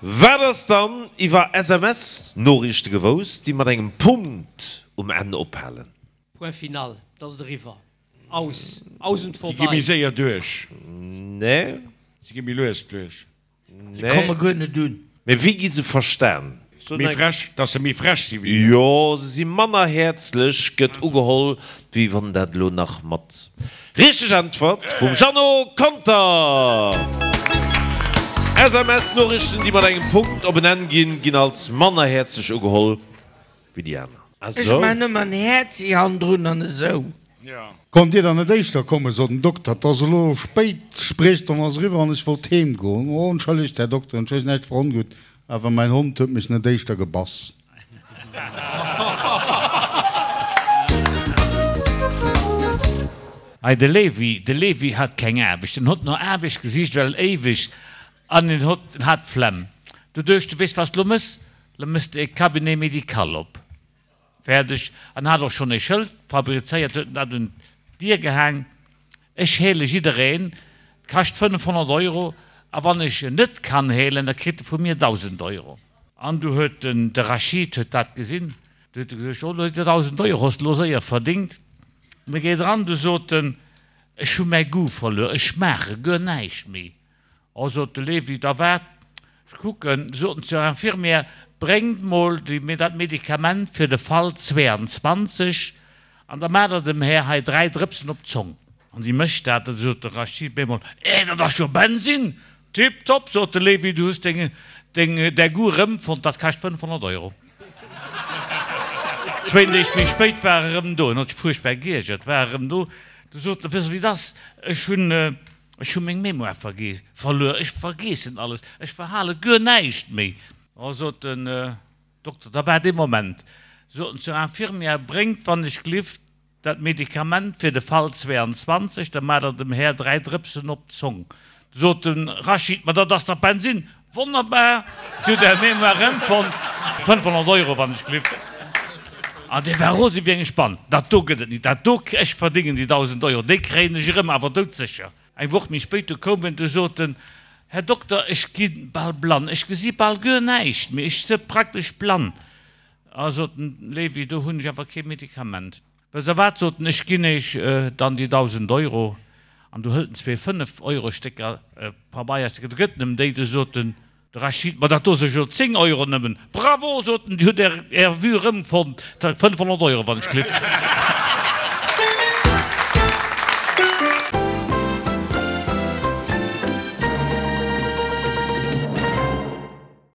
Wat ass dann iwwer SMS-Noriichte gewousst, déi mat engem Punkt um Enn ophalen? Point final, et ass et eriwwer. Aus, aus und Déi gi vorbei. méi séier duerch. Nee. Se gi méi lues duerch. Se komme guer net un. Mee wéi gi se verstan? Méi frech, dass se méi frech si wéi mir. Jo, se si manner häerzlech, gëtt ugeholl, wéi wann dat elo nach mat. Richteg Äntwert vum Jeannot Conter! SMS-Noriichten, déi mat engem Punkt op en Enn ginn, ginn als manner häerzlech ugeholl wéi déi aner. Ech man ëmmer en Häerzi hannendrun an esou. Konnt Dir dann net éischter kommen, sot den Dokter, 't ass elo spéit, d'Spriechstonn ass eriwwer an ech wollt heem goen. Oh, entschëllegt, Här Dokter, entschëllegt, näischt verongutt, awer mäin Hond huet mech net éischter gebass. Hei de Levi, de Levi hat keng Aarbecht, en hott no Aarbecht gesicht well éiweg an en hott, en hat d'Flemm. Du duecht, du weess wat s de lo mëss? Lo mëss de e Cabinet médical op. Fäerdeg. An hat och schonn e Schëld fabrizéiert, huet en dat un d'Dier gehaang, Ech heele jiddereen, 't kascht 500 Euro, a wann ech en net kann heelen, da kritt e vu mir 1.000 Euro. An du huet den, de Rachid huet dat gesinn, du huet e gesot, Oh, lo huet e 1.000 Euro, hues de lo séier verdingt. An e geet eran, du sot en, Ech hu mäi Goût verluer, ech schmaache guer näischt méi. Oh, sot de Levi, da waart, ech kucken. Sot en zur Infirmière, Bréngt mol déi, dat Medikament fir de Fall 22, an da maacht Der dem Här hei 3 Drëpsen op d'Zong. An si mécht dat, da sot de Rachid bemol, Eh, dat ass jo Bensin! Tiptop, sot de Levi, du hues deng, deng, däi Goût erëmfonnt, dat kascht 500 Euro. Zwéin Deeg méi spéit war e erëm do, en huet sech fuerchtbar geiergert, war erëm do, du sot en, Wëss de wéi et ass, ech hunn, Ech hu meng Mémoire vergeess, verluer, ech vergeessen alles, ech verhale guer näischt méi. Oh, sot den Dokter, da waart ee Moment, sot en zur Infirmière, bréngt wann ech glift dat Medikament fir de Fall 22, da maacht der dem Här 3 Drëpsen op d'Zong. Sot de Rachid, ma dat ass dach Bensin! Wonnerbar! Dir hutt Är Mémoire erëmfonnt, 500 Euro wann ech glift. An dee war rose wéi eng Spann. Dat do gëtt et nit, dat do, ech verdéngen déi 1.000 Euro, déi kréien ech erëm, awer doudsécher. Eng Woch méi spéit, du koum en, du sot en, Här Dokter, ech gi bal blann, ech gesi bal guer näischt méi, ech se praktesch blann. A sot den Levi, do hunn ech awer kee Medikament. Wësst der wat, sot en, ech ginn Iech dann déi 1.000 Euro. An du hëlt en zwee Fënnef-Euro-Stécker, Pabeierstécker, du gëtt en em déi. Du sot den de Rachid, Ma dat do si jo 10 Euro nëmmen. Bravo, sot en, Dir hutt Är Är Vue erëmfonnt, 500 Euro, wann ech glift.